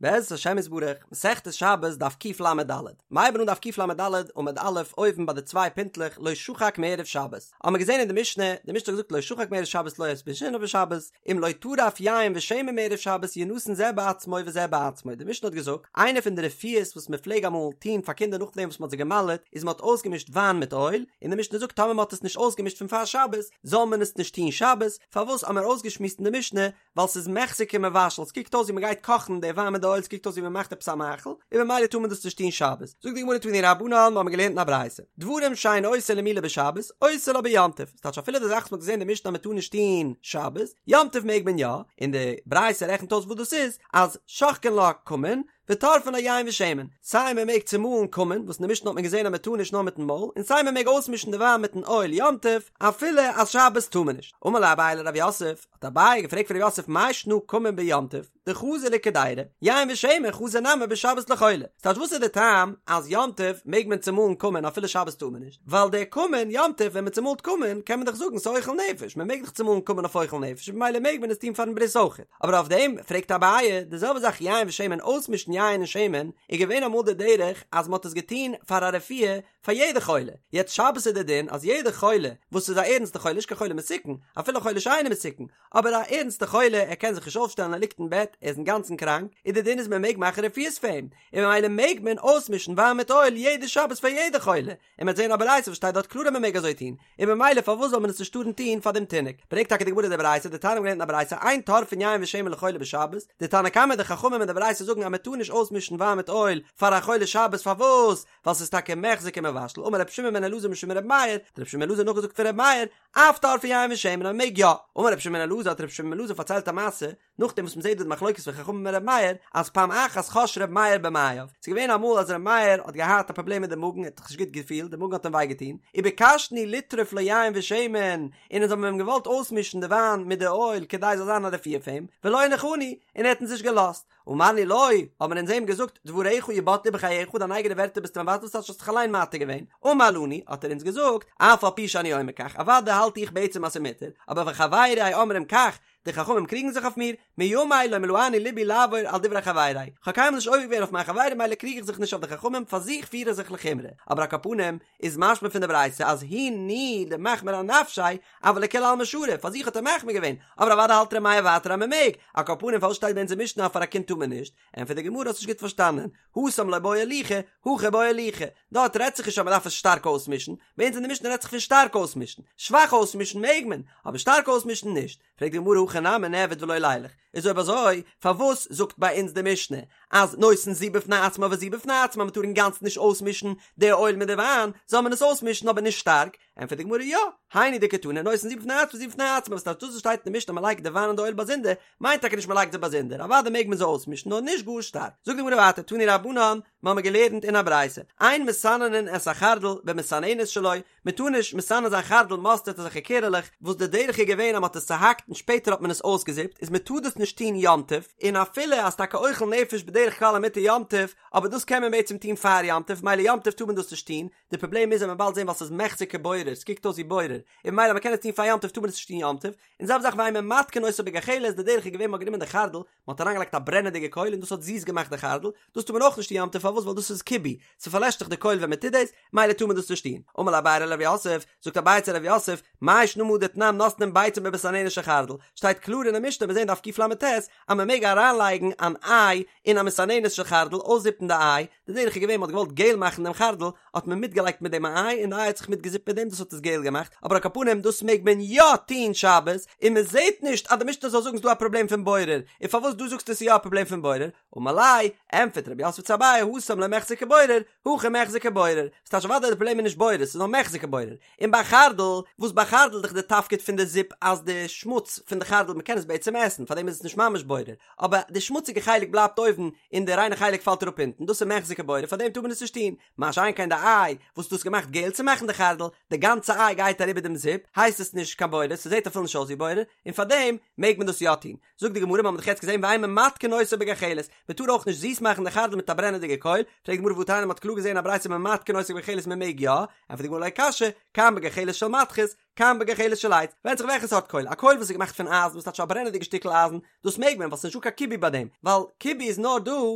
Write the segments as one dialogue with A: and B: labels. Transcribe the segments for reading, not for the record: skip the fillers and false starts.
A: בעזרת השם יתברך, מסכת שבת דף קל"ד, מ'הייבן אן דף קל"ד עמוד א' אויבן ביי די צוויי פינטלעך לא שחק מערב שבת, האמער געזען אין די משנה, די משנה האט געזאגט לא שחק מערב שבת לא ישביתנו בשבת, אם לא טרף יין ושמן מערב שבת ינתן זה בעצמו וזה בעצמו, די משנה האט געזאגט, איינע פון די רפואות וואס מען פלעג אמאל טון פאר קינדער נאכדעם וואס מען האט זיי גע'מל'עט, איז מען האט אויסגעמישט וויין מיט אויל, און די משנה זאגט טאמער מען האט עס נישט אויסגעמישט פון פאר שבת, זאל מען עס נישט טון שבת, פארוואס האמער אויסגעשמועסט אין די משנה, ווייל ס'איז מיחזי כמבשל, ס'קוקט אויס ווי מ'גייט קאכן די וויין מיט די אויל, ס'קוקט אויס ווי מ'מאכט עפעס א מאכל, און ממילא טאר מען דאס נישט טון שבת. זאגט די גמרא תנו רבנן, מ'האמיר געלערנט אין א ברייתא, דברים שאין עושין למילה בשבת, עושה לה ביום טוב, ס'טייטש אפילו די זאך וואס מ'האט געזען אין די משנה אז מ'טאר נישט טון שבת, יום טוב מעג מען יא, און די ברייתא רעכנט אויס וואס דאס איז, אז שוחקין לה כמון, וטורפין לה יין ושמן, סיי מען מעג צומאלן כמון, וואס אין די משנה האט מען געזען אז מען טאר נישט נאר מיטן מויל, און סיי מען מעג אויסמישן די וויין מיטן אויל יום טוב, אפילו אז שבת טאר מען נישט. אמר ליה אביי לרב יוסף, האט אביי געפרעגט פון רב יוסף מאי שנא כמון ביום טוב, דחזי לקדירה, יין ושמן חזי נמי בשבת לחולה, ס'טייטש וואס איז די טעם אז יום טוב מעג מען צומאלן כמון אפילו שבת טאר מען נישט, ווייל דער כמון יום טוב ווען מען צומאלט כמון קען מען דאך זאגן ס'אוכל נפש, מען מעג דאך צומאלן כמון אויף אוכל נפש ממילא מעג מען עס טון פארן ברית אויכעט. אבער אויף דעם פרעגט אביי, די זעלבע זאך יין ושמן אויסמישן יין און שמן, איז געווען אמאל די דרך אז מען האט עס געטון פאר א רפואה פאר יעדע חולה, יעצט שבת איז די דין אז יעדע חולה וואס איז א ערנסטע חולה נישט קיין חולה מסוכן, אפילו חולה שאינו מסוכן, אבער א ערנסטע חולה ער קען זיך נישט אויפשטעלן ער ליגט אין בעט ער איז אינגאנצן קראנק, איז די דין איז מען מעג מאכן רפואות פאר אים, און ממילא מעג מען אויסמישן וויין מיט אויל יעדע שבת פאר יעדע חולה, און מ'וועט זען א ברייתא וואס שטייט דארט קלאר אז מ'מעג אזוי טון, און ממילא פארוואס זאל מען עס נישט טארן טון פאר דעם תינוק? ברענגט טאקע די גמרא די ברייתא, דתניא מ'האט געלערנט אין א ברייתא, אין טורפין יין ושמן לחולה בשבת, די תנא קמא די חכמים אין די ברייתא זאגן אז מ'טאר נישט אויסמישן וויין מיט אויל פאר א חולה שבת פארוואס? ווייל ס'איז טאקע מיחזי כמבשל, אמר רבי שמעון בן אלעזר משום רבי מאיר, האט רבי שמעון בן אלעזר נאכגעזאגט פון רבי מאיר, אף טורפין יין ושמן אז מ'מעג יא, אמר רבי שמעון בן אלעזר האט רבי שמעון בן אלעזר פארציילט א מעשה, נאכדעם וואס מ'זעט דא די מחלוקת פון חכמים און ר' מאיר, אז פעם אחת חש ר' מאיר במעיו, ס'איז געווען אמאל אז ר' מאיר האט געהאט א פראבלעם מיט די מאגן, ער האט זיך נישט גוט געפילט, די מאגן האט אים וויי געטון, וביקשנו לטרוף לו יין ושמן, און אונז האבן אים געוואלט אויסמישן די וויין מיט די אויל כדי ס'זאל זיין א רפואה פאר אים, ולא הניחנו, און ער האט אונז נישט געלאזט. אמרנו לו, האבן אונז אים געזאגט, דבריך יבטלו בחייך, דיין אייגענע ווערטער ביסטו מבטל, וואס האסט זיך אליין מתיר געווען? אמר לנו, האט ער אונז געזאגט, אף על פי שאני אומר כך, אוודאי האלט איך בעצם אז ס'איז מותר, אבער וחברי אומרים כך, די חכמים קריגן זיך אויף מיר, מימי לא מלאני לבי לעבור על דברי חברי, כ'האב קיינמאל נישט עובר געווען אויף מיין חברים מילא קריג איך זיך נישט אויף די חכמים, פאר זיך פיר איך זיך לחומרא, אבער על כל פנים איז משמע פון די ברייתא אז הוא ניהו דמחמיר אנפשיה, אבל לכולי עלמא שרי, פאר זיך האט ער מחמיר געווען, אבער אוודאי האלט ר' מאיר ווייטער אז מ'מעג, על כל פנים פארוואס שטייט ביי אונזער משנה אז פאר א קינד טאר מען נישט? ענטפערט די גמרא האסט נישט גוט פארשטאנען, התם לא בעי ליחא, הכא בעי ליחא, דארט רעדט זיך נישט אז מען דארף עס שטארק אויסמישן, ביי אונז אין די משנה רעדט זיך פון שטארק אויסמישן, שוואך אויסמישן מעג מען, אבער שטארק אויסמישן נישט, פרעגט די גמרא הכא נמי נעביד ולא לילך, איז אויב אזוי פארוואס זאגט ביי אונז די משנה אז נותן זו בפני עצמה וזו בפני עצמה מען טאר אינגאנצן נישט אויסמישן די אויל מיט די וויין, זאל מען עס אויסמישן אבער נישט שטארק, ענטפערט די גמרא יא, היינו דקתני נותן זו בפני עצמה וזו בפני עצמה, וואס טייטש דאס וואס שטייט אין די משנה אז מען לייגט די וויין און די אויל באזונדער, מיינט טאקע נישט מען לייגט זיי באזונדער, אוודאי מעג מען זיי אויסמישן נאר נישט גאר שטארק. זאגט די גמרא ווייטער תנו רבנן, מיר האבן געלערנט אין א ברייתא, אין מסננין את החרדל במסננת שלו, מען טאר נישט מסנן זיין חרדל מאסטערד אזעלכע קערעלעך, וואס די דרך איז געווען אז מען האט עס צוהאקט און שפעטער האט מען עס אויסגעזיפט, איז מען טאר דאס נישט טון יום טוב, און אפילו אז טאקע אוכל נפש בדרך כלל איז מותר יום טוב, אבער דאס קען מען בעצם טון פאר יום טוב, מילא יום טוב טאר מען דאס נישט טון, די פראבלעם איז אז מ'וועט באלד זען ווייל ס'איז מיחזי כבורר, ס'קוקט אויס ווי בורר, און ממילא מ'קען עס טון פאר יום טוב טאר מען עס נישט טון יום טוב, און זעלבע זאך ואין ממתקין אותו בגחלת, די דרך איז געווען מ'האט גענומען די חרדל, מ'האט אריינגעלייגט א ברענעדיגע קויל און דאס האט זיס געמאכט די חרדל, דאס טאר מען אויך נישט טון יום טוב פארוואס ווייל דאס איז כיבוי, ס'פארלעשט דאך די קויל ווען מ'טוט דאס, מילא טאר מען דאס נישט טון. אמר ליה אביי לרב יוסף, זאגט אביי צו רב יוסף, מאי שנא מהא דתנן נותנין ביצה במסננת של חרדל, שטייט קלאר אין די משנה מיר זעהן דף קל"ט אז מ'מעג אריינלייגן אן איי אין א מסננת של חרדל, אויסזיפן די איי, די דרך איז געווען מ'האט געוואלט געל מאכן דעם חרדל, האט מען מיטגעלייגט מיט דעם א איי און די איי האט זיך מיטגעזיפט מיט דעם דאס האט עס געל געמאכט, אבער על כל פנים דאס מעג מען יא טוהן שבת, און מען זעהט נישט אז די משנה זאל זאגן ס'דא א פראבלעם פון בורר, און פארוואס דא זאגסטו ס'איז יא א פראבלעם פון בורר? אמר ליה, ענטפערט רב יוסף צו אביי התם לא מיחזי כבורר, הכא מיחזי כבורר, ס'טייטש אוודאי די פראבלעם איז נישט בורר ס'איז נאר מיחזי כבורר, און ביי חרדל, וואס ביי חרדל איז דאך די תפקיד פון די זיפ אז די שמוץ פון די חרדל מ'קען עס בעצם עסן פארדעם איז עס נישט ממש בורר, אבער די שמוציגע חלק בלייבט אויבן און די ריינע חלק פאלט אראפ אונטן, דאס איז מיחזי כבורר פארדעם טאר מען עס נישט טון, מה שאין כן די איי וואס דאס געמאכט געל צו מאכן די חרדל, די. גאנצע איי גייט אריבער דעם זיפ, הייסט עס נישט קיין בורר, ס'זעט אפילו נישט אויס ווי בורר, און פארדעם מעג מען דאס יא טון. זאגט די גמרא, מ'האט דאך יעצט געזען ואין ממתקין אותו בגחלת, מ'טאר אויך נישט זיס מאכן די חרדל מיט א ברענעדיגע קויל, פרעגט די גמרא והתניא מ'האט קלאר געזען א ברייתא ממתקין אותו בגחלת מ'מעג יא, ענטפערט די גמרא לא קשיא, כאן בגחלת של מתכת, כאן בגחלת של עץ, ווענדט זיך וועלכע סארט קויל, א קויל וואס איז געמאכט פון אייזן וואס טייטש א ברענעדיגע שטיקל אייזן, דאס מעג מען ווייל ס'איז נישטא קיין כיבוי ביי דעם, ווייל כיבוי איז נאר דא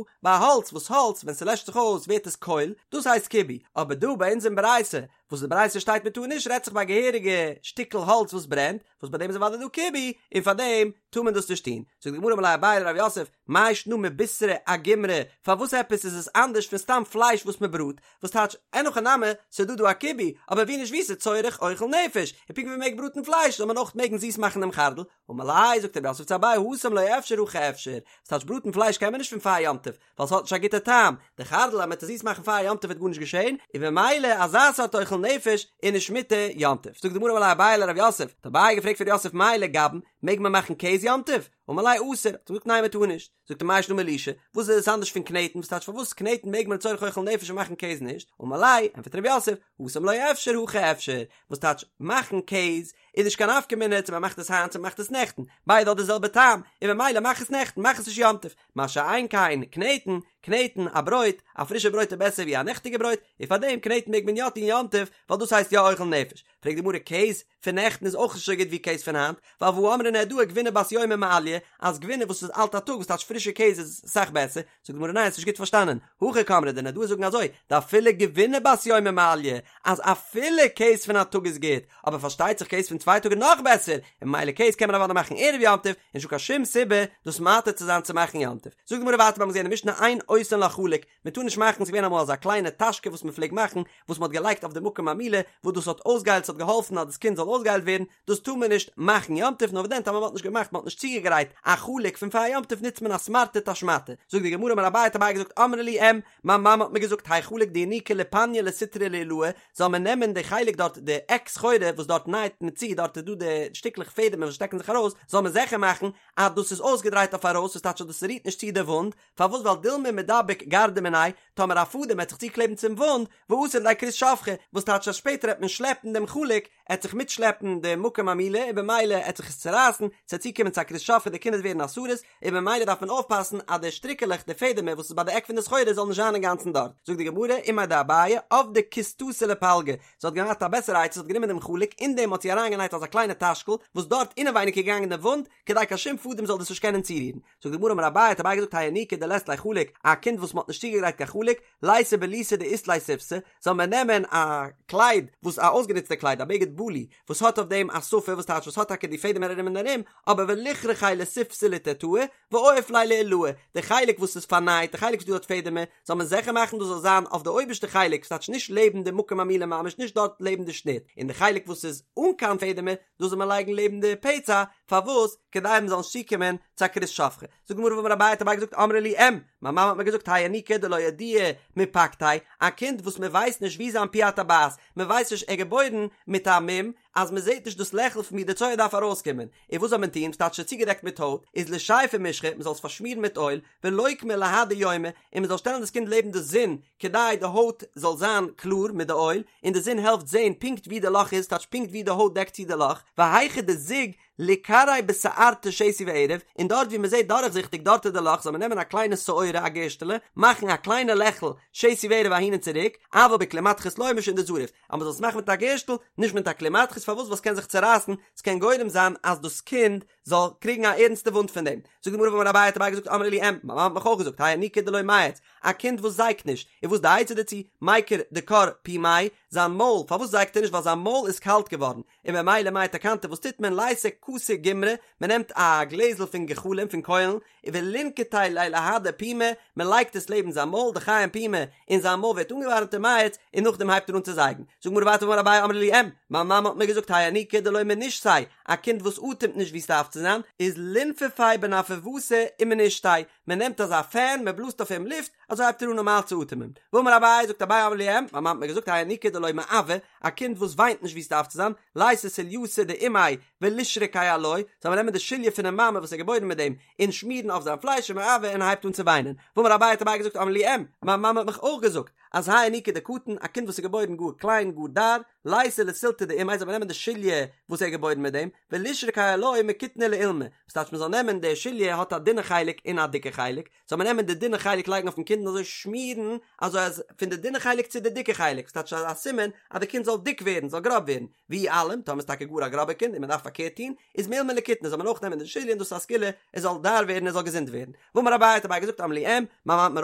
A: ביי האלץ, וואס האלץ ווען ס'לעשט זיך אויס ווערט עס קויל, דאס הייסט כיבוי, אבער דא ביי אונז אין ברייתא, וואס די ברייתא שטייט מ'טאר נישט רעדט זיך ביי א געהעריגע שטיקל האלץ וואס ברענט, וואס ביי דעם איז אוודאי דא כיבוי, און פאר דעם טאר מען דאס נישט טון. זאגט די גמרא אמר ליה אביי לרב יוסף, מאי שנא מבישרא אגומרי, פארוואס עפעס איז עס אנדערש פון סתם פלייש וואס מען בראט, וואס טייטש אין הכי נמי, ס'איז דא דא א כיבוי, אבער ווי נישט ווי ס'איז צורך אוכל נפש, און פונקט ווי מ'מעג בראטן פלייש זאל מען אויך מעגן זיס מאכן דעם חרדל, אמר ליה, זאגט רב יוסף צו אביי התם לא אפשר הכא אפשר, וואס טייטש בראטן פלייש קען מען נישט פון פאר יום טוב, ווייל ס'האט נישט א גוטע טעם, די חרדל אז מ'וועט עס זיס מאכן פאר יום טוב וועט גארנישט געשען, און במילא אזא סארט אוכל נפש איז נישט מותר יום טוב. זאגט די גמרא אמר ליה אביי לרב יוסף, האט אביי געפרעגט פון רב יוסף מהו לגבן, מעג מען מאכן קעז יום טוב? אמר ליה אסור, האט ער געזאגט ניין מ'טאר נישט, זאגט ער מאי שנא מלישה, וואס איז עס אנדערש פון קנעטן, וואס טייטש פארוואס קנעטן מעג מען לצורך אוכל נפש און מאכן קעז נישט, אמר ליה, ענטפערט רב יוסף, התם לא אפשר הכא אפשר, וואס טייטש מאכן קעז איז נישט קיין נפקא מינה צו מ'מאכט עס היינט צו מ'מאכט עס נעכטן, ביידע האט די זעלבע טעם, און במילא מאך עס נעכטן, מאך עס נישט יום טוב, מה שאין כן קנעטן, קנעטן א ברויט, א פרישע ברויט איז בעסער ווי א נעכטיגע ברויט, און פארדעם קנעטן מעג מען יא טון יום טוב, ווייל דאס הייסט יא אוכל נפש. פרעגט די גמרא קעז פון נעכטן איז אויך נישט אזוי גוט ווי קעז פון היינט, ווייל והא אמרי נהרדעי גבינה בת יומא מעליא, אז גבינה וואס איז אלט א טאג וואס טייטש פרישע קעז איז אסאך בעסער, זאגט די גמרא ניין האסט נישט גוט פארשטאנען, הכי קאמרי די נהרדעי זאגן אזוי, דאפילו גבינה בת יומא מעליא, אז אפילו קעז פון א טאג איז גוט, אבער פארשטייט זיך קעז פון צוויי טאג איז נאך בעסער, און ממילא קעז קען מען אוודאי מאכן ערב יום טוב, און נישטא קיין שום סיבה דאס מתיר צו זיין צו מאכן יום טוב. זאגט די גמרא ווייטער מיר האבן געזען אין משנה אין עושין לה חלוק, מען טאר נישט מאכן, ס'איז געווען אמאל אזא קליינע טאשקע וואס מען פלעגט מאכן, וואס מען האט געלייגט אויף די מקום המילה, וואס דאס האט אויסגעהיילט, ס'האט געהאלפן אז דאס קינד זאל אויסגעהיילט ווערן, דאס טאר מען נישט מאכן יום טוב, נאר וואס דען טאמער מען האט נישט געמאכט, מען האט נישט צוגעגרייט א חלוק פון פאר יום טוב נוצט מען א סמרטוט א שמאטע, זאגט די גמרא אמר אביי האט אביי געזאגט אמרה לי אם, מיין מאמע האט מיר געזאגט האי חלוק דיניקו ליפניא לסטרא לעילאי, זאל מען נעמען די חלק דארט די עק סחורה וואס דארט נייעט מען צו דארט איז דא די שטיקלעך פעדעמער וואס שטעקן זיך ארויס, זאל מען זיכער מאכן אז דאס איז אויסגעדרייט אויף ארויס וואס טייטש אז דאס רירט נישט צו די וואונד, פארוואס ווייל דילמא מידבק גרדא מיניה, טאמער א פאדעם וועט זיך צוקלעבן צום וואונד, ואתי לידי כרות שפכה, וואס טייטש אז שפעטער העט מען שלעפן דעם חלוק, עט זיך מיטשלעפן די מקום המילה און במילא עט זיך עס צורייסן, ס'עט צוקומען צו א כרות שפכה די קינד עט ווערן א סריס, און במילא דארף מען אויפפאסן אז די שטריקעלעך די פעדעמער וואס איז ביי די עק פון די סחורה זאל נישט זיין אינגאנצן דארט, זאגט די גמרא, אימיה דאביי, עבדה כיסתתא לפלגא, זי האט געהאט א בעסערע עצה זי האט גענומען דעם חלוק אין דעם האט זי אריינגענייט אזא קליינע טאשקל וואס דארט אינעווייניג איז געגאנגען די וואונד, כדי קיין שום פאדעם זאל דאס נישט קענען צורירן. זאגט די גמרא אמר אביי האט אביי געזאגט האי ינוקא דלית ליה חלוק, א קינד וואס מען האט נישט צוגעגרייט קיין חלוק, לייתי בליתא דאית ליה שיפתא, זאל מען נעמען א קלייד וואס א אויסגענוצטע קלייד א בגד בלי וואס האט אויף דעם א שפה וואס טייטש וואס האט טאקע די פעדעמער ארום און ארום, אבער וליכרכיה לסיפתא לתתאי ואויף ליה לעילאי, די חלק וואס איז פארנייט, די חלק וואס דא האט פעדעמער, זאל מען זיכער מאכן דאס זאל זיין אויף די אויבערשטע חלק, ס'טייטש נישט לעבן די מקום המילה ממש נישט דארט לעבן די שניט, און די חלק וואס איז אן קיין פעדעמער, דאס זאל מען לייגן לעבן די פצע, פארוואס? כדי מען זאל נישט צוקומען צו א כרות שפכה. זאגט די גמרא והאמר אביי האט אביי געזאגט אמרה לי אם, מיין מאמע האט מיר געזאגט האי ינוקא דלא ידיעי מפקתיה, א קינד וואס מען ווייסט נישט וואו זיין פי הטבעת, מען ווייסט נישט ער איז געבוירן מיט א מום, אז מען זעט נישט דאס לעכל פון וואו די צואה דארף ארויסקומען, און וואס זאל מען טון, ס'טייטש ס'איז צוגעדעקט מיט הויט, איז לישייפיה משחא, מען זאל עס פארשמירן מיט אויל, ולוקמיה להדי יומא, און מען זאל שטעלן דאס קינד לעבן די זון, כדי די הויט זאל זיין קלאר מיט די אויל, און די זון העלפט זען פונקט ווי די לאך איז, טייטש פונקט ווי די הויט דעקט צו די לאך, והיכא דזיג ליקרעיה בשערתא שתי וערב, און דארט ווי מען זעט דורכזיכטיג דארט איז די לאך, זאל מען נעמען א קליינע שעורה א גערשטעלע, מאכן א קליינע לעכל שתי וערב אהין און צוריק, אבל בכלי מתכות לא משום דזריף, אז מען זאל עס מאכן מיט א גערשטל, נישט מיט א כלי מתכות, פארוואס ווייל עס קען זיך צורייסן, עס קען גורם זיין אז דאס קינד זאל קריגן א ערנסטע וואונד פון דעם. זאגט די גמרא והאמר אביי האט אביי געזאגט אמרה לי אם, מיין מאמע האט מיך אויך געזאגט האי ינוקא דלא מייץ, א קינד וואס זייגט נישט, און וואס די עצה דערצו, מיקר דקר פומיה, זיין מויל, פארוואס זייגט ער נישט ווייל זיין מויל איז קאלט געווארן, און ממילא מאי תקנתא וואס טוט מען לייתי כסא גומרי, מען נעמט א גלעזל פון גחלים פון קוילן, ולינקטיה ליה להדי פומיה, מען לייגט עס לעבן זיין מויל, דחיים פומיה, און זיין מויל ווערט אנגעווארעמט ומייץ, און נאכדעם הייבט ער אן צו זייגן. זאגט גמרא ווייטער והאמר אביי אמרה לי אם, מיין מאמע האט מיר געזאגט האי ינוקא דלא מנשתיה, א קינד וואס אטעמט נישט ווי ס'דארף צו זיין, איז לינפפיה בנרפוותא ומנשתיה, מען נעמט אזא פען מען בלאזט אויף אים לופט, אזוי הייבט ער אן נארמאל צו אטעמען. ואמר אביי, זאגט אביי אמרה לי אם, מיין מאמע האט מיר געזאגט האי ינוקא דלא מעוי, א קינד וואס וויינט נישט ווי עס דארף צו זיין, לייתי סולייתא דאימיה ולישרקיה עילויה, זאל מען נעמען די שוליא פונעם מאמע וואס איז געבוירן מיט דעם, און שמירן אויף זיין פלייש ומעוי און ער הייבט אן צו וויינען. ואמר אביי האט אביי געזאגט אמרה לי אם, מיין מאמע האט מיך אויך געזאגט, אז האי ינוקא דקטין, א קינד וואס איז געבוירן גאר קליין, גאר דאר, לייתי לסולתא דאימיה זאל מען נעמען די שוליא וואס ער איז געבוירן מיט דעם, ולישרקיה עילויה מקיטנא לאולמא, וואס טייטש מען זאל נעמען די שוליא האט א דינע חלק און א דיקע חלק, זאל מען נעמען די דינע חלק לייגן אויפן קינד און אזוי שמירן אזוי אז פון די דינע חלק צו די דיקע חלק, וואס טייטש א סימן אז די קינד זאל דיק ווערן, זאל גראב ווערן, ואי אלים, טאמער איז טאקע גאר א גראבע קינד און מען דארף פארקערט טון, איז מאולמא לקיטנא זאל מען אויך נעמען די שוליא און דאס איז א סגולה ער זאל דאר ווערן ער זאל געזונט ווערן. ואמר אביי האט אביי געזאגט אמרה לי אם, מיין מאמע האט מיר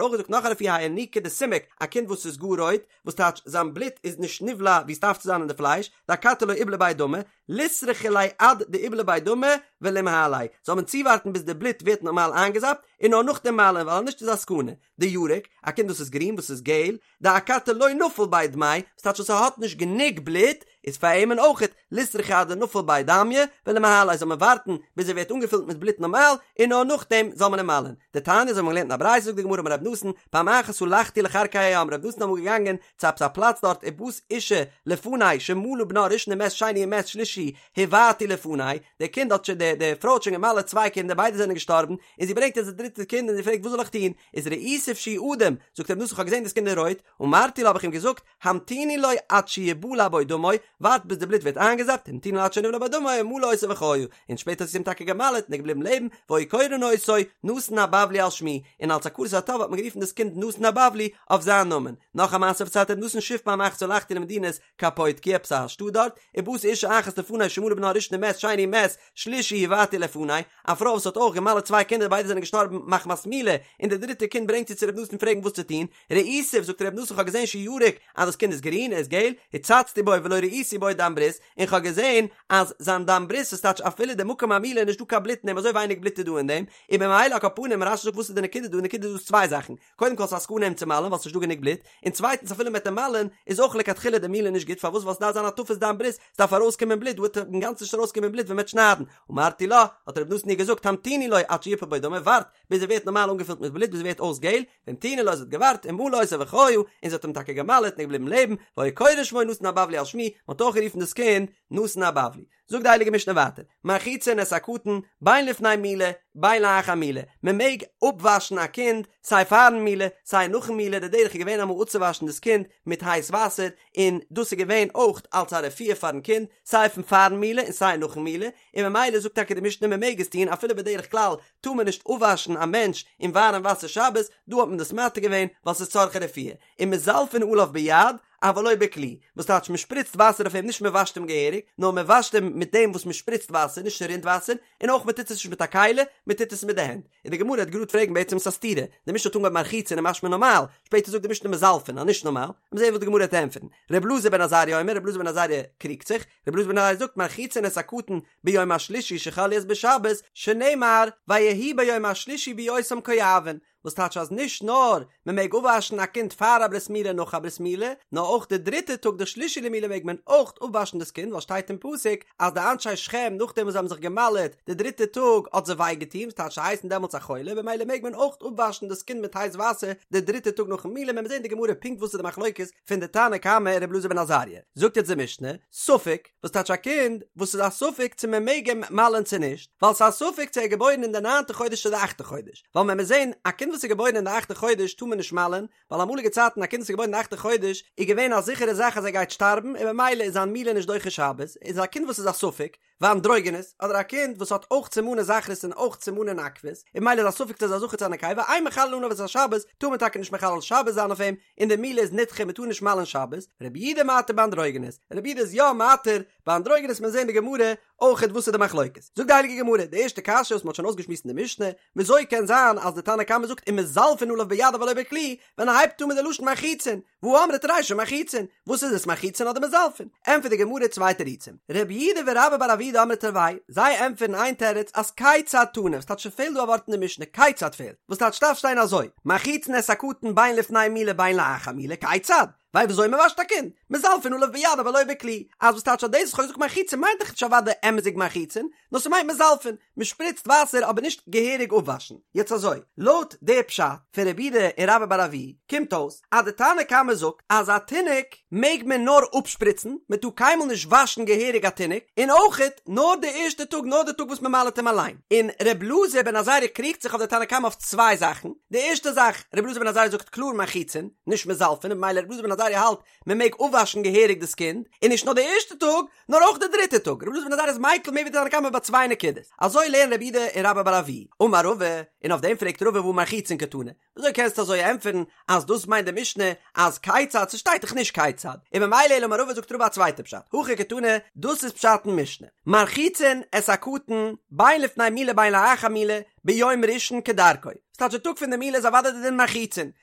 A: אויך געזאגט נאך א רפואה האי ינוקא דסומק, א קינד וואס איז גאר רויט, וואס טייטש זיין בלוט איז נישט נבלע ווי עס דארף צו זיין אין די פלייש, דאכתי לא איבלע ביה דמא, ליסרכו ליה עד דאיבלע ביה דמא ולימהליה, זאל מען צואווארטן ביז די בלוט ווערט נארמאל איינגעזאפט, און נאר נאכדעם מל'ען, ווייל אנישט איז א סכנה. דירק, א קינד וואס איז גרין, וואס איז געל, דאכתי לא נפיל ביה דמיה, וואס טייטש אז ס'האט נישט גענוג בלוט, איז פאר אים אויכעט, ליסרכו עד דנפיל ביה דמיא, ולימהליה זאל מען ווארטן ביז ער ווערט אנגעפילט מיט בלוט נארמאל, און נאר נאכדעם זאל מען אים מל'ען. דתניא אזוי האבן מיר געלערנט אין א ברייתא זאגט די גמרא אמר רב נתן, פעם אחת הלכתי לכרכי הים, רב נתן איז אמאל געגאנגען צו עפעס א פלאץ דארט ובאת אשה לפני שמלה בנה ראשון ומת שני ומת שלישי הובעטו לפני, די קינד האט שוין די די פרוי האט שוין געמל'עט צוויי קינדער ביידע זענען געשטארבן, און זי ברענגט יעצט די דריטע קינד און זי פרעגט וואס זאל איך טון, איז ראיתיו שהוא אדום, זאגט רב נתן איך האב געזען דאס קינד איז רויט, אמרתי לה האב איך אים געזאגט, המתיני לו עד שיבלע בו דמו, ווארט ביז די בלוט ווערט איינגעזאפט, המתינה לו עד שנבלע בו דמו, ומלה אותו וחיה, און שפעטער האט זי אים טאקע געמל'עט און ער איז געבליבן לעבן, והיו קורין אותו נתן הבבלי על שמי, און אלס הכרת הטוב האט מען גערופן דאס קינד נתן הבבלי אויף זיין נאמען. נאך א מעשה פארציילט רב נתן שוב פעם אחת הלכתי למדינת קפוטקיא עפעס א שטאט דארט, ובאת אשה אחת לפני שמלה בנה ראשון ומת שני ומת שלישי הובעטו לפני, א פרוי וואס האט אויך געמל'עט צוויי קינדער ביידע זענען געשטארבן מחמת מילה, און די דריטע קינד ברענגט זי צו רב נתן פרעגן וואס צו טון, ראיתיו, זאגט רב נתן איך האב געזען שהוא ירוק אז דאס קינד איז גרין, ער איז געל, הצצתי בו ולא ראיתי בו דם ברית, און כ'האב געזען אז זיין דם ברית איז טייטש אפילו די מקום המילה איז נישט דא קיין בלוט אין דעם אזוי ווייניג בלוט איז דא אין דעם, און במילא על כל פנים רש"י זאגט וואס איז די נקודה דא, די נקודה דא איז צוויי זאכן, קודם כל ס'איז א סכנה אים צו מל'ן ווייל ס'נישט דא גענוג בלוט, און צווייטנס אפילו מ'וועט אים מל'ן איז אויך לכתחילה די מילה נישט גוט פארוואס ווייל ס'דארף זיין הטפת דם ברית, ס'דארף ארויסקומען בלוט דא וועט אינגאנצן נישט ארויסקומען בלוט ווען מ'וועט שניידן, אמרתי לה, האט רב נתן איר געזאגט המתיני לו עד שיפול בו דמו ווארט ביז ער ווערט נארמאל אנגעפילט מיט בלוט ביז ער ווערט אויס געל, והמתינה לו זי האט געווארט ומלה אותו וחיה, און זי האט אים טאקע געמל'עט און ער איז געבליבן לעבן, והיו קורין שמו נתן הבבלי על שמי, מ'האט אויך גערופן דאס קינד נתן הבבלי. זאגט די הייליגע משנה ווייטער, מרחיצין את הקטן, בין לפני מילה, בין לאחר מילה, מען מעג אפוואשן א קינד סיי פארן מילה, סיי נאכן מילה, די דרך איז געווען אמאל אפצואוואשן דאס קינד מיט הייס וואסער, און דאס איז געווען אויך אלס א רפואה פארן קינד, סיי פון פארן מילה און סיי נאכן מילה, און ממילא זאגט טאקע די משנה מען מעג עס טון אפילו בדרך כלל טאר מען נישט אפוואשן א מענטש אין ווארעם וואסער שבת, דא האט מען דאס מתיר געווען ווייל ס'איז צרכי רפואה, ומזלפין עליו ביד אבל לא בכלי, וואס טייטש מען שפריצט וואסער אויף אים נישט מען וואשט אים געהעריג, נאר מען וואשט אים מיט דעם וואס מען שפריצט וואסער נישט ס'רינט וואסער, און אויך מען טוט עס נישט מיט א כלי, מען טוט עס מיט די הענט. און די גמרא וועט גראד פרעגן בעצם ס'איז א סתירה, די משנה האט אנגעהויבן מרחיצין און משמע נארמאל, שפעטער זאגט די משנה מזלפין אז נישט נארמאל, לאמיר זען וואס די גמרא וועט ענטפערן. ר' אלעזר בן עזריה אומר, ר' אלעזר בן עזריה קריגט זיך, ר' אלעזר בן עזריה זאגט מרחיצין את הקטן ביום השלישי שחל להיות בשבת, שנאמר ויהי ביום השלישי בהיותם כואבין, וואס טייטש אז נישט נאר מען מעג אפוואשן א קינד פאר א ברית מילה און נאך א ברית מילה, נאר אויך די דריטע טאג די שלישי למילה מעג מען אויך אפוואשן דאס קינד ווייל שטייט אין פסוק אז די אנשי שכם נאכדעם וואס זיי האבן זיך געמל'עט די דריטע טאג האט זיי וויי געטון וואס טייטש זיי הייסן דעמאלטס א חולה במילא מעג מען אויך אפוואשן דאס קינד מיט הייס וואסער די דריטע טאג נאכן מילה מען וועט זען אין די גמרא פונקט וואס איז די מחלוקת פון די תנא קמא און ר' אלעזר בן עזריה זאגט יעצט די משנה ספק וואס טייטש א קינד וואס איז א ספק צו מען מעג אים מל'ען צו נישט, ווייל ס'איז א ספק צו ער איז געבוירן אין די ניינטע חודש צו די אכטע חודש, ווייל מען מוז זען, א קינד וואס איז געבוירן אין די אכטע חודש טאר מען נישט מל'ען, ווייל אמאליגע צייטן א קינד וואס איז געבוירן אין די אכטע חודש איז געווען א זיכערע זאך אז ער גייט שטארבן און ממילא איז זיין מילה נישט דוחה שבת, איז א קינד וואס איז א ספק, ואנדרוגינוס, אדער א קינד וואס האט אויך סימני זכרות און אויך סימני נקבות, און ממילא איז א ספק צו ער איז א זכר צו א נקבה, אין מחללין עליו את השבת, טאר מען טאקע נישט מחלל שבת זיין אויף אים, און די מילה איז נדחה מען טאר נישט מל'ען שבת, רבי יהודה מתיר באנדרוגינוס, רבי יהודה איז יא מתיר באנדרוגינוס מיר זעהן אין די גמרא אויכעט וואס איז די מחלוקת, זאגט די הייליגע גמרא, די ערשטע קשיא וואס מען האט שוין אויסגעשמועסט אין די משנה, וויאזוי קען זיין אז די תנא קמא זאגט ומזלפין עליו ביד אבל לא בכלי, ווען ער הייבט אן מיט די לשון מרחיצין, והא אמרת רישא מרחיצין, וואס איז עס מרחיצין אדער מזלפין? ענטפערט די גמרא צוויי תירוצים, רב יהודה ורבה בר אבוה דאמרי תרוייהו, זיי ענטפערן איין תירוץ אז כיצד תנא, וואס טייטש ס'פעלט דא א ווארט אין די משנה, כיצד פעלט, וואס טייטש ס'דארף שטיין אזוי, מרחיצין את הקטן בין לפני מילה בין לאחר מילה, כיצד? ווייל וויאזוי מען וואשט א קינד, מזלפין עליו ביד אבל לא בכלי, אז וואס טייטש אז דאס וואס כ'האב געזאגט מרחיצין מיינט דאך נישט אוודאי אמת'דיג מרחיצין, נאר ס'מיינט מזלפין, מ'שפריצט וואסער אבער נישט געהעריג אפוואשן. יעצט אזוי, לויט די פשט פון רב יהודה און רבה בר אבוה קומט אויס אז די תנא קמא זאגט אז א תינוק מעג מען נאר אפשפריצן, מען טאר קיינמאל נישט וואשן געהעריג א תינוק, און אויכעט נאר די ערשטע טאג נאר די טאג וואס מען מל'עט אים אליין. און ר' אלעזר בן עזריה קריגט זיך אויף די תנא קמא אויף צוויי זאכן, די ערשטע זאך, ר' אלעזר בן עזריה זאגט קלאר מרחיצין, נישט מזלפין, און במילא ר' אלעזר בן עזריה האלט מען מעג אפוואשן געהעריג דאס קינד, און נישט נאר די ערשטע טאג, נאר אויך די דריטע טאג, רבי אלעזר בן עזריה איז מיקל מער ווי די תנא קמא ביי צוויי נקודות, אזוי לערנען רב יהודה און רבה בר אבוה, אמר רבא, און אויף דעם פרעגט רבא והא מרחיצין קתני, וויאזוי קענסטו אזוי ענטפערן אז דאס מיינט די משנה אז כיצד, ס'שטייט דאך נישט כיצד, און ממילא אלא אמר רבא זאגט רבא א צווייטע פשט, הכי קתני, דאס איז פשט אין משנה, מרחיצין את הקטן בין לפני מילה בין לאחר מילה ביום ראשון כדרכו, ס'טייטש די טאג פון די מילה איז אוודאי די דין מרחיצין,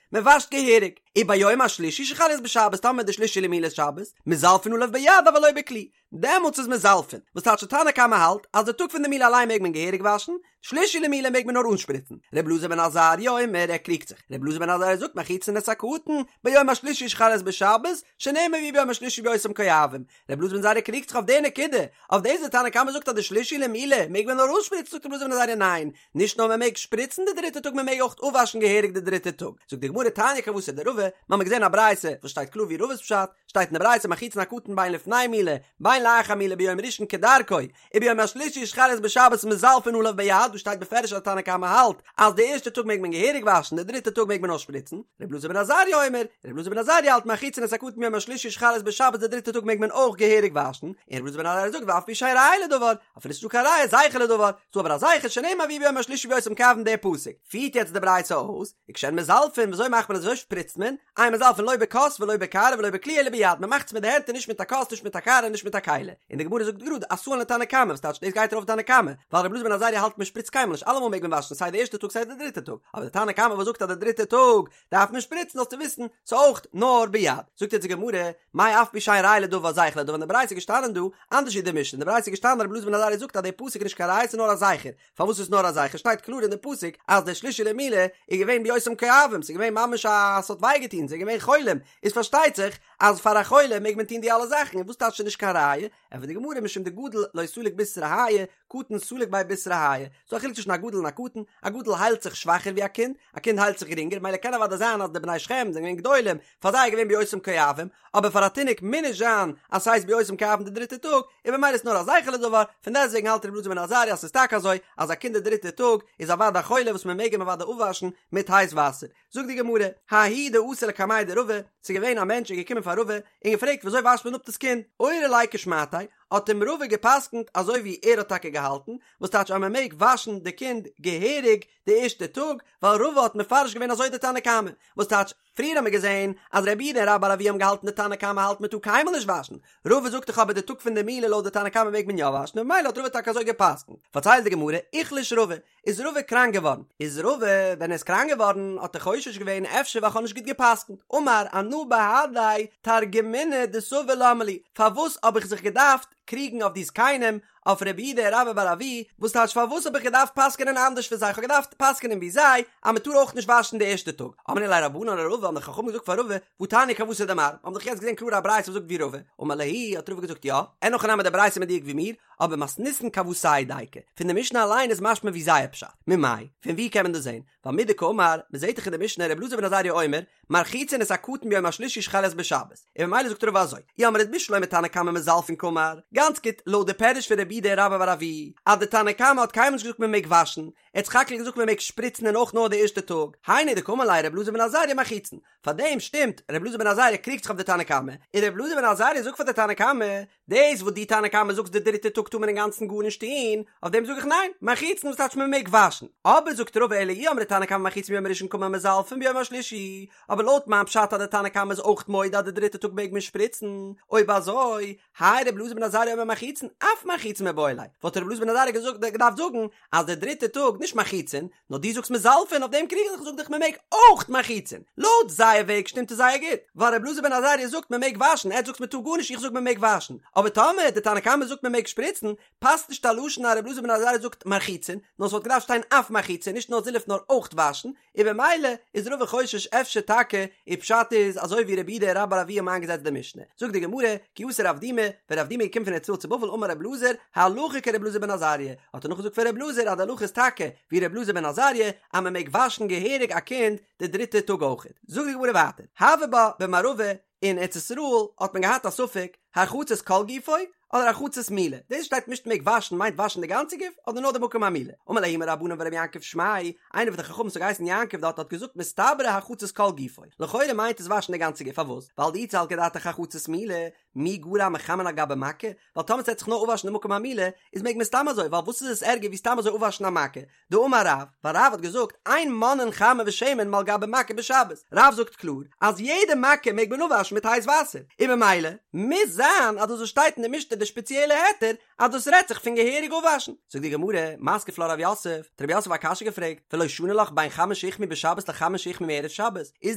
A: מען וואשט געהעריג, וביום השלישי שחל להיות בשבת טאמער די שלישי למילה איז שבת, מזלפין עליו ביד אבל לא בכלי, דעמאלטס איז מזלפין, וואס טייטש די תנא קמא האלט אז די טאג פון די מילה אליין מעג מען געהעריג וואשן, שלישי למילה מעג מען נאר אנשפריצן, ר' אלעזר בן עזריה אומר ער קריגט זיך, ר' אלעזר בן עזריה זאגט מרחיצין את הקטן ביום השלישי שחל להיות בשבת, שנאמר ויהי ביום השלישי בהיותם כואבים, ר' אלעזר בן עזריה קריגט זיך אויף די נקודה, אויף דאס די תנא קמא זאגט אז די שלישי למילה מעג מען נאר אנשפריצן זאגט ר' אלעזר בן עזריה ניין, נישט נאר מען מעג שפריצן די דריטע טאג מען מעג אויך אפוואשן געהעריג די דריטע טאג, זאגט די גמרא תניא כוותיה דרבא, מיר האבן געזען א ברייתא וואס שטייט קלאר ווי רבא'ס פשט, שטייט אין די ברייתא מרחיצין הקטן בין לפני מילה בין לאחר מילה ביום ראשון כדרכו, וביום השלישי שחל להיות בשבת מזלפין עליו ביד, דא שטייט בפירוש אז די תנא קמא האלט אז די ערשטע טאג מעג מען געהעריג וואשן די דריטע טאג מעג מען נאר שפריצן, ר' אלעזר בן עזריה אומר, ר' אלעזר בן עזריה האלט מרחיצין את הקטן ביום השלישי שחל להיות בשבת די דריטע טאג מעג מען אויך געהעריג וואשן, און ר' אלעזר בן עזריה זאגט ואף על פי שאין ראיה לדבר, אפילו ס'איז נישטא קיין ראיה זכר לדבר, ס'דא אבער א זכר שנאמר ויהי ביום השלישי בהיותם כואבים דער פסוק פירט יעצט די ברייתא אויס, וכשהן מזלפין וויאזוי מאכט מען עס וויאזוי שפריצט מען, אין מזלפין לא בכוס ולא בקערה ולא בכלי אלא ביד, מען מאכט עס מיט די הענט און נישט מיט א כוס נישט מיט א קערה און נישט מיט א כלי, און די גמרא זאגט גראד אתאן לתנא קמא וואס טייטש דאס גייט ארויף תנא קמא, ווייל רבי אלעזר בן עזריה האלט מען שפריצט קיינמאל נישט אלעמאל מעג מען וואשן סיי די ערשטע טאג סיי די דריטע טאג, אבער די תנא קמא וואס זאגט אז די דריטע טאג דארף מען שפריצן זאלסטו וויסן ס'איז אויך נאר ביד. זאגט יעצט די גמרא, מאי אף על פי שאין ראיה לדבר זכר לדבר אין די ברייתא איז געשטאנען דא אנדערש ווי די משנה אין די ברייתא איז געשטאנען רבי אלעזר בן עזריה זאגט אז די פסוק איז נישט קיין ראיה ס'איז נאר א זכר, פארוואס איז נאר א זכר שטייט קלאר אין די פסוק אז די שלישי למילה איז געווען בהיותם כואבים ס'איז געווען ממש א ס'האט וויי געטון ס'איז געווען חולים איז פארשטייט זיך אז פאר א חולה מעג מען טון די אלע זאכן און וואס טייטש ס'איז נישט קיין ראיה ענטפערט די גמרא משום דגדול לא סליק בישרא האי קטן סליק ביה בישרא האי, ס'דא א חילוק צווישן א גדול און א קטן, א גדול היילט זיך שוואכער ווי א קינד, א קינד היילט זיך גרינגער, מילא קען אוודאי זיין אז די בני שכם זענען געווען גדולים, פאר זיי איז געווען בהיותם כואבים, אבער פאר א תינוק מוז נישט זיין אז ס'הייסט בהיותם כואבים די דריטע טאג, און במילא איז נאר א זכר לדבר, פון דעסטוועגן האלט רבי אלעזר בן עזריה אז ס'איז טאקע אזוי אז א קינד די דריטע טאג איז אוודאי א חולה וואס מ'מעג אים אוודאי אפוואשן מיט הייס וואסער. זאגט די גמרא, ההוא דאתא לקמיה דרבא, ס'איז געווען א מענטש איז געקומען פאר רבא און געפרעגט וויאזוי וואשט מען אפ דאס קינד, אורי ליה כשמעתיה, האט אים רבא גע'פסק'נט אזוי ווי ער האט טאקע געהאלטן, וואס טייטש אז מען מעג וואשן די קינד געהעריג די ערשטע טאג, ווייל רבא האט מפרש געווען אזוי די תנא קמא, וואס טייטש, פריער האמיר געזען אז רב יהודה און רבה בר אבוה האבן געהאלטן די תנא קמא האלט מען טאר קיינמאל נישט וואשן, רבא זאגט דאך אבער די טאג פון די מילה לויט די תנא קמא מעג מען יא וואשן און ממילא האט רבא טאקע אזוי גע'פסק'נט, פארציילט די גמרא, איחלש רבא, איז רבא קראנק געווארן, איז רבא ווען ער איז קראנק געווארן האט ער חושש געווען אפשר ווייל כ'האב נישט גוט גע'פסק'נט, אמר אנא בהדי תרגמינא דסבי למה לי, פארוואס האב איך זיך געדארפט קריגן אויף די זקנים, אויף רב יהודה און רבה בר אבוה, וואס טייטש פארוואס האב איך געדארפט פסק'נען אנדערש פון זיי, כ'האב געדארפט פסק'נען ווי זיי אז מ'טאר אויך נישט וואשן די ערשטע טאג, אמרו ליה רבנן לרבא האבן די חכמים געזאגט פאר רבא, והתניא כוותיה דמר, האבן דאך יעצט געזען קלאר א ברייתא וואס זאגט ווי רבא, אמר להו האט רבא געזאגט יא, אין הכי נמי די ברייתא מדויק ווי מיר, אבער מתניתין כוותייהו דייקא, פון די משנה אליין איז משמע ווי זייער פשט, ממאי? פון ווי קען מען דאס זען? ווייל מדקאמר, מען זעט דאך אין די משנה ר' אלעזר בן עזריה אומר, מרחיצין את הקטן ביום השלישי שחל להיות בשבת, און ממילא זאגט רבא אזוי, אי אמרת בשלמא תנא קמא מזלפין קאמר, גאנץ גוט, לויט די פירוש פון רב יהודה און רבה בר אבוה, אז די תנא קמא האט קיינמאל נישט געזאגט מען מעג וואשן, ער האט סך הכל געזאגט מען מעג שפריצן און אויך נאר די ערשטע טאג, היינו דקאמר ליה ר' אלעזר בן עזריה מרחיצין, פאר דעם שטימט ר' אלעזר בן עזריה קריגט זיך אויף די תנא קמא, און ר' אלעזר בן עזריה זאגט פאר די תנא קמא, דאס וואס דו תנא קמא זאגסט די דריטע טאג טאר מען אינגאנצן גארנישט טון, אויף דעם זאג איך ניין, מרחיצין וואס טייטש מען מעג וואשן, אבער זאגט רבא אלא אי אמרת תנא קמא מרחיצין ביום הראשון קאמר מזלפין ביום השלישי, אבער לויט מיין פשט אז די תנא קמא איז אויך מודה אז די דריטע טאג מעג מען שפריצן, אויב אזוי, האי ר' אלעזר בן עזריה אומר מרחיצין, אף מרחיצין. מרחיצין מיבעי ליה, וואלט רבי אלעזר בן עזריה געזאגט געדארפט זאגן אז די דריטע טאג נישט מרחיצין, נאר דו זאגסט מזלפין אויף דעם קריג איך זיך זאג דיך מען מעג אויך מרחיצין, לויט זייער וועג שטימט עס זייער גוט, ווייל רבי אלעזר בן עזריה זאגט מען מעג וואשן, עטס זאגטס מען טאר גארנישט איך זאג מען מעג וואשן, אבער טאמער די תנא קמא זאגט מען מעג שפריצן, פאסט נישט א לשון אז רבי אלעזר בן עזריה זאגט מרחיצין, נאר ס'וואלט געדארפט שטיין אף מרחיצין נישט נאר זילוף נאר אויך וואשן, און במילא איז רבא חושש אפשר טאקע איר פשט איז אזוי ווי רב יהודה רבה בר אבוה האבן איינגעזעצט די משנה. זאגט די גמרא, כי אתא רב דימי, ווען רב דימי איז געקומען פון ארץ ישראל צו בבל אמר רב אלעזר, הלכה כרב אלעזר בן עזריה, האט ער נאכגעזאגט פון רב אלעזר אז די הלכה איז טאקע ווי רב אלעזר בן עזריה אז מען מעג וואשן געהעריג א קינד די דריטע טאג אויכעט. זאגט די גמרא ווייטער, הוה בה במערבא, אין ארץ ישראל האט מען געהאט א ספק הרחצת כל גופו אדער הרחצת מילה, דאס שטייט נישט מעג וואשן מיינט וואשן די גאנצע גוף אדער נאר די מקום המילה, אמר להו ההוא מרבנן ורבי יעקב שמיה, איינער פון די חכמים וואס האט געהייסן יעקב דארט האט געזאגט מסתברא הרחצת כל גופו, לכאורה מיינט עס וואשן די גאנצע גוף פארוואס? ווייל דאי סלקא דעתך הרחצת מילה, מי גרע מחמין על גבי מכה, ווייל טאמער ס'וועט זיך נאר אפוואשן די מקום המילה איז מעג מען סתם אזוי ווייל וואס איז עס ערגער ווי סתם אזוי אפוואשן א מכה, דאמר רב, ווייל רב האט געזאגט, אין מונעין חמין ושמן מעל גבי מכה בשבת, רב זאגט קלאר אז יעדע מכה מעג מען אפוואשן מיט הייס וואסער, און במילא מוז זיין אז דאס וואס שטייט אין די משנה די שפעציעלע היתר אז דאס רעדט זיך פון געהעריג אפוואשן. זאגט די גמרא, מתקיף לה רב יוסף, האט רב יוסף א קשיא געפרעגט, ולא שני לך בין חמין שהוחמו בשבת לחמין שהוחמו מערב שבת, איז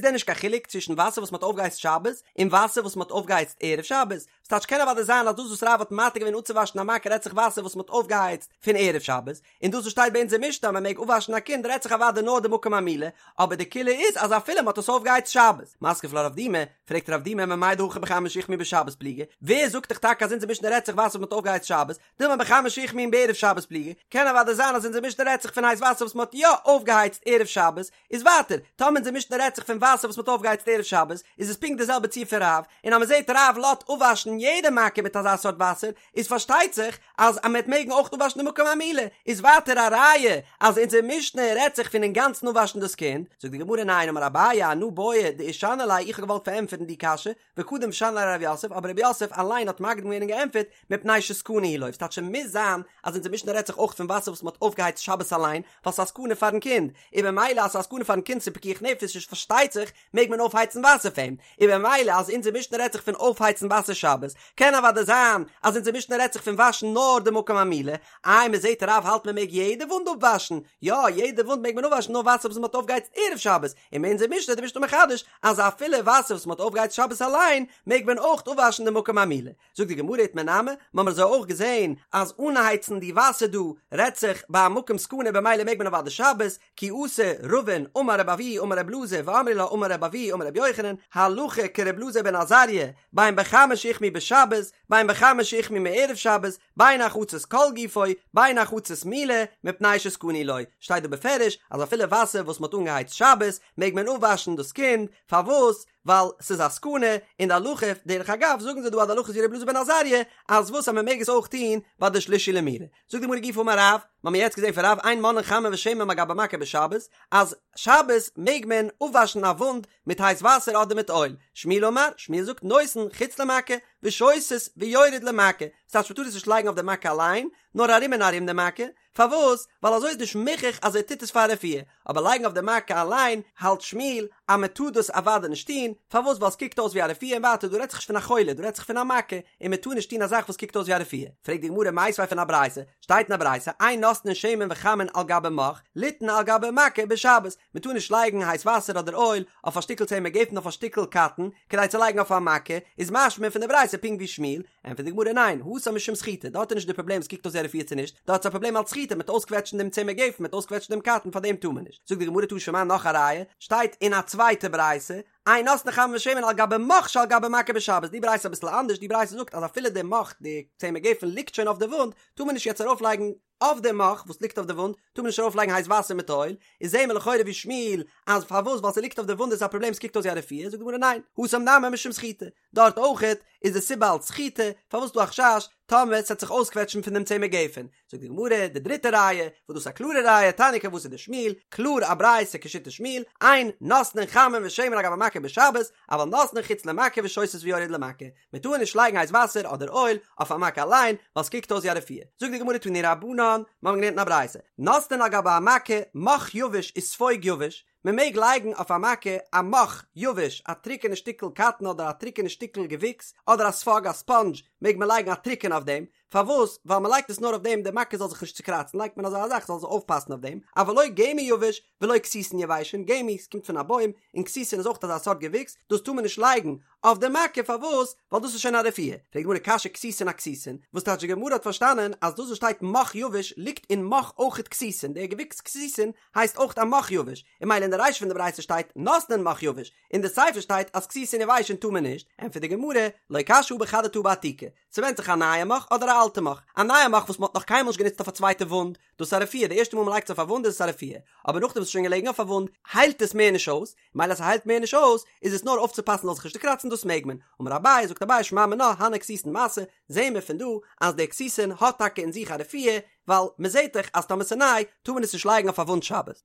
A: דען נישט קיין חילוק צווישן וואסער וואס מען האט אויפגעהייצט שבת און וואסער וואס מען האט אויפגעהייצט ערב שבת, ס'טייטש קען אוודאי זיין אז דאס וואס רב האט מתיר געווען אפצואוואשן א מכה רעדט זיך וואסער וואס מען האט אויפגעהייצט פון ערב שבת, און דאס וואס שטייט ביי אונז אין משנה אז מען מעג אפוואשן א קינד רעדט זיך אוודאי נאר די מקום המילה, אבער די קולא איז אז אפילו מען האט עס אויפגעהייצט שבת. מתקיף לה רב דימי, פרעגט רב דימי ממאי דהכא בחמין שהוחמו בשבת פליגי, ווער זאגט דיך טאקע אז אונזער משנה רעדט זיך וואסער וואס מען האט אויפגעהייצט שבת, דילמא בחמין שהוחמו בערב שבת פליגי, קען אוודאי זיין אז אונזער משנה רעדט זיך פון הייס וואסער וואס מען האט יא אויפגעהייצט ערב שבת, איז ווייטער, טאמער אונזער משנה רעדט זיך פון וואסער וואס מען האט אויפגעהייצט ערב שבת, איז עס פונקט די זעלבע ציור פון רב, און אז מען זעט רב לאזט אפוואשן יעדע מכה מיט אזא סארט וואסער, איז פארשטייט זיך אז אז מען וועט מעגן אויך אפוואשן די מקום המילה, איז ווייטער א ראיה אז אונזער משנה רעדט זיך פון אינגאנצן אפוואשן דאס קינד, זאגט די גמרא ניין אמר אביי אנא בעי דאישני ליה איך האב געוואלט פארענטפערן די קשיא, וקדם ושני ליה רב יוסף, אבער רב יוסף אליין האט מקדים געווען און געענטפערט, מפני שסכנה היא לו, ס'טייטש ס'מוז זיין אז אונזער משנה רעדט זיך אויך פון וואסער וואס מ'האט אויפגעהייצט שבת אליין, ווייל ס'איז א סכנה פארן קינד, און במילא אז ס'איז א סכנה פארן קינד ס'איז פיקוח נפש איז פארשטייט זיך מעג מען אויפהייצן וואסער פאר אים, און במילא אז אונזער משנה רעדט זיך פון אויפהייצן וואסער שבת, קען אוודאי זיין אז אונזער משנה רעדט זיך פון וואשן נאר די מקום המילה, איי מ'זעט רב האלט מ'מעג יעדע וואונד אפוואשן, יא יעדע וואונד מעג מען אפוואשן נאר וואסער וואס מ'האט אויפגעהייצט ערב שבת, און אין אונזער משנה איז די משנה מחדש אז אפילו וואסער וואס מ'האט אויפגעהייצט שבת אליין מעג מען אויך אפוואשן די מקום המילה. זאגט די גמרא איתמר נמי, מ'האמיר אזוי אויך געזען אז אנהייצן די וואסער דא רעדט זיך ביי א מקום סכנה במילא מעג מען אוודאי שבת, כי אתא רבין אמר רבי אבהו אמר רבי אלעזר ואמרי לה אמר רבי אבהו אמר רבי יוחנן, הלכה כרבי אלעזר בן עזריה, בין בחמין שהוחמו בשבת, בין בחמין שהוחמו מערב שבת, בין הרחצת כל גופו, בין הרחצת מילה, מפני שסכנה היא לו, שטייט דא בפירוש אז אפילו וואסער וואס מ'האט אנגעהייצט שבת, מעג מען אפוואשן דאס קינד, פארוואס? ווייל ס'איז א סכנה, און די הלכה, דרך אגב זאגן זיי דא אז די הלכה איז ווי רבי אלעזר בן עזריה, אז וואס אז מ'מעג עס אויך טון ביי די שלישי למילה. זאגט די גמרא גופא אמר רב, מ'האמיר יעצט געזען פון רב אין מונעין חמין ושמן מעל גבי מכה בשבת, אז שבת מעג מען אפוואשן א וואונד מיט הייס וואסער אדער מיט אויל, שמואל אמר, שמואל זאגט נותן חוץ למכה, ושותת ויורד למכה, ס'טייטש מ'טאר עס נישט לייגן אויף די מכה אליין, נאר ארום און ארום די מכה, פארוואס? ווייל אזוי איז נישט מוכח אז ער טוט עס פאר רפואה, אבער לייגן אויף די מכה אליין האלט שמואל אז מען טאר דאס אוודאי נישט טון, פארוואס? ווייל עס קוקט אויס ווי א רפואה און ווייטער דא רעדט זיך נישט פון א חולה דא רעדט זיך פון א מכה און מען טאר נישט טון א זאך וואס קוקט אויס ווי א רפואה. פרעגט די גמרא מיתיבי פון א ברייתא, שטייט אין א ברייתא אין נותנין שמן וחמין על גבי מוך ליתן על גבי מכה בשבת, מען טאר נישט לייגן הייס וואסער אדער אויל אויף א שטיקל צמר גפן אויף א שטיקל קאטן כדי צו לייגן אויף א מכה, איז משמע פון די ברייתא פונקט ווי שמואל, ענטפערט די גמרא ניין, התם משום סחיטה, דארט איז נישט די פראבלעם עס קוקט אויס ווי א רפואה צו נישט, דארט איז א פראבלעם אלץ סחיטה מ'וועט אויסקוועטשן דעם צמר גפן מ'וועט אויסקוועטשן דעם קאטן פאר דעם טאר מען נישט, זאגט די גמרא תא שמע נאך א ראיה, שטייט אין א צווייטע ברייתא, אין נותנין חמין ושמן על גבי מוך שעל גבי מכה בשבת, די ברייתא איז אביסל אנדערש, די ברייתא זאגט אז אפילו די מוך די צמר גפן ליגט שוין אויף די וואונד, טאר מען נישט יעצט ארויף לייגן אויף די מוך וואס ליגט אויף די וואונד, טאר מען נישט ארויף לייגן הייס וואסער מיט אויל, איז זעהן מיר לכאורה ווי שמואל אז פארוואס ווייל ס'ליגט אויף די וואונד איז א פראבלעם ס'קוקט אויס ווי א רפואה, זאגט די גמרא ניין, התם נמי משום סחיטה, דארט אויכעט איז די סיבה אלץ סחיטה, פארוואס דא א חשש טאמער ס'עט זיך אויסקוועטשן פון דעם צמר גפן? זאגט די גמרא, די דריטע ראיה, וואס דאס איז א קלארע ראיה, תניא כוותיה דשמואל, קלאר א ברייתא כשיטת שמואל, אין נותנין חמין ושמן על גבי מכה בשבת, אבל נותנין חוץ למכה ושותת ויורד למכה, מען טאר נישט לייגן הייס וואסער אדער אויל אויף א מכה אליין, ווייל ס'קוקט אויס ווי א רפואה. זאגט די גמרא תנו רבנן, מיר האבן געלערנט אין א ברייתא, נותנין על גבי המכה, מוך יבש וספוג יבש, מען מעג לייגן אויף א מכה א מוך יבש, א טרוקענע שטיקל קאטן אדער א טרוקענע שטיקל געוויקס, אדער א ספאג, א ספאנדזש, מעג מען לייגן א טרוקענע אויף דעם, פארוואס? ווייל מען לייגט עס נאר אויף דעם די מכה זאל זיך נישט צוקראצן לייגט מען אזא זאך זאל זיך אויפפאסן אויף דעם, אבל לא גמי יבש ולא כתיתין יבשין, גמי קומט פון א בוים, און כתיתין איז אויך אזא סארט געוויקס, דאס טאר מען נישט לייגן אויף די מכה, פארוואס? ווייל דאס איז שוין א רפואה. פרעגט די גמרא קשיא כתיתין אכתיתין, וואס טייטש די גמרא האט פארשטאנען אז דאס וואס שטייט מוך יבש ליגט אין מוך אויכעט כתיתין, דער געוויקס כתיתין הייסט אויך א מוך יבש, און ממילא אין די רישא פון די ברייתא שטייט נותנין מוך יבש, אין די סיפא שטייט אז כתיתין יבשין טאר מען נישט, ענטפערט די גמרא, לא קשיא הא בחדתא הא בעתיקא, ס'ווענדט זיך א נייע מוך אדער א אלטע מוך, א נייע מוך וואס מ'האט נאך קיינמאל נישט גענוצט אויף א צווייטע וואונד, דאס איז א רפואה, די ערשטע מאל מ'לייגט עס אויף א וואונד איז עס א רפואה, אבער נאכדעם וואס ס'איז שוין געלעגן אויף א וואונד, היילט עס מער נישט אויס, מילא אז ס'היילט מער נישט אויס, איז עס נאר אויפצופאסן זאל זיך נישט צוקראצן דאס מעג מען. אמר אביי, זאגט אביי שמע מינה, הני כתיתין מסי, זעהן מיר פון דא אז דער כתיתין האט טאקע אין זיך א רפואה, ווייל מ'זעהט דאך אז טאמער ס'איז ניי, טאר מען עס נישט לייגן אויף א וואונד שבת.